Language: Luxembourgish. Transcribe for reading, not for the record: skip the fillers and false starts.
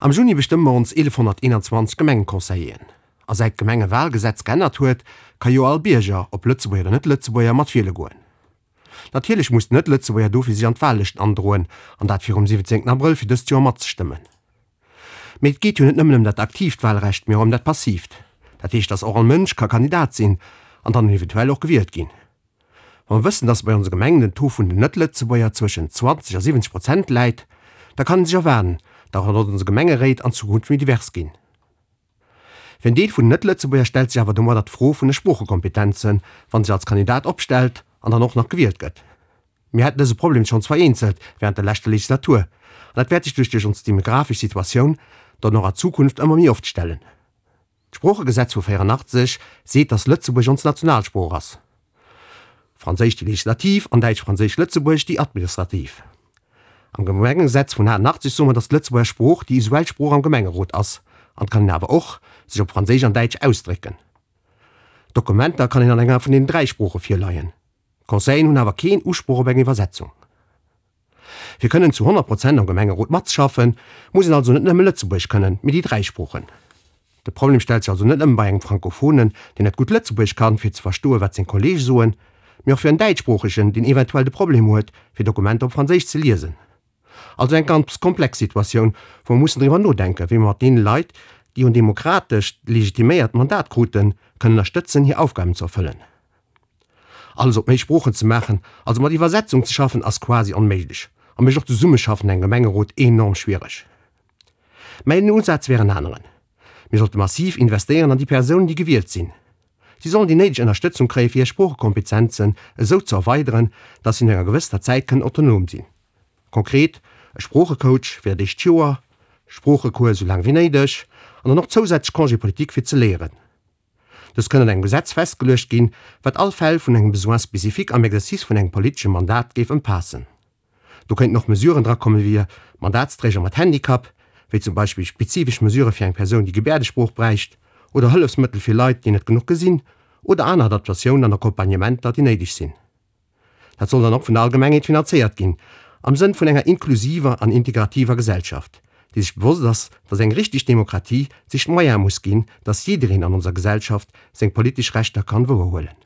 Am Juni bestëmme mer ons 1121 Gemengeconseilleren. A säit d'Gemengewalgesetz geännert huet, ka jo all Bierger, ob Lëtzebuerger oder Net-Lëtzebuerger, mat wiele goen. Natierlech muss den Net-Lëtzebuerger dofir sech an d'Wahllëschten androen, an dat virum 17 Abrëll fir dëst Joer matzestëmmen. Mee et geet jo net nëmmen ëm dat aktiivt Wahlrecht, mee och ëm dat passiivt. Dat heescht, dass och all Mënsch ka Kandidat sinn an dann eventuell och gewielt ginn. Wa mer wëssen, dass bei onse Gemengen den Taux vun den Net-Lëtzebuerger zwëschen 20 a 70 Prozent läit, da kann ee sech erwaarden, datt och onse Gemengeréit an Zukunft méi divers ginn. Fir en Deel vun den Net-Lëtzebuerger stellt sech awer domadder d'Fro vun de Sproochekompetenzen, wann sech als Kandidat opstellt an dann och nach gewielt gëtt. Mir haten dëse Problem schonns vereenzelt während der leschter Legislatur an dat wäert sech duerch duerch ons demografesch Situatioun dann och a Zukunft ëmmer méi oft stellen. D'Sproochegesetz vu 84 seet, datt Lëtzebuergesch ons Nationalsprooch ass, Franséisch déi legislativ an Däitsch-Franséisch-Lëtzebuergesch déi administrativ. Am Gemengegesetz vun 88 soe mer, datt d'Lëtzebuerger Sprooch déi usuell Sprooch am Gemengerot ass an et kann een awer och sech op Franséisch an Däitsch ausdrécken. Dokumenter kann een an enger vun deenen 3 Sprooche virleien. D'Conseillen hunn awer keen Usproch op eng Iwwersetzung. Fir kënnen zu 100 Prozent am Gemengerot matzeschaffen, muss een also net nëmme Lëtzebuergesch kënnen, mee déi 3 Sproochen. De Problem stellt sech also net nëmme bei engem Frankophonen, deen net gutt Lëtzebuergesch kann, fir ze verstoen, wat seng Kollege soen, mee och fir en Däitschsproochegen, deen eventuell de Problem huet, fir Dokumenter op Franséisch ze liesen. Also eng ganz komplex Situatioun, wou mer mussen driwwer nodenken, wéi mer mat deene Leit, déi en demokratescht legitiméiert Mandat kruten, kënnen ënnerstëtzen, hir Aufgaben ze erfëllen. Alles op méi Sproochen ze maachen, also mat Iwwersetzung ze schaffen, ass quasi onméiglech a mécht och d'Zesummeschaffen an engem Gemengerot enorm schwiereg. Mäin Usaz wär en aneren, Mir sollte massiv investéieren an déi Persounen, déi gewielt sinn. Si sollen déi néideg Ënnerstëtzung kréien, fir hir Sproochekompetenzen esou ze erweideren, dass si no enger gewëssener Zäit kënnen autonom sinn. Konkret, e Sproochecoach fir dat éischt Joer, Sproochecours esou laang wéi néideg an dann och zousätzlech Congé politique fir ze léieren. Dës kënn an engem Gesetz festgeluecht ginn, wat all Fäll vun engem Besoin spécifique am Exercice vun engem politesche Mandat géif ëmfaassen. Do kéinten och Mesuren drakomme fir Mandatsträger mat Handicap, wéi zum Beispill spezifesch Mesurë fir eng Persoun, déi Gebäerdesprooch bräicht, oder Hëllefsmëttel fir Leit, déi net genuch gesinn, oder aner Adaptatiounen an Accompagnementer, déi néideg sinn. Dat soll dann och vun der Allgemengheet finanzéiert ginn, am Sënn vun enger inklusiver an integrativer Gesellschaft, déi sech bewosst ass, dass eng richteg Demokratie sech d'Moyene muss ginn, dass jiddereen an onser Gesellschaft seng politesch Rechter kann wouerhuelen.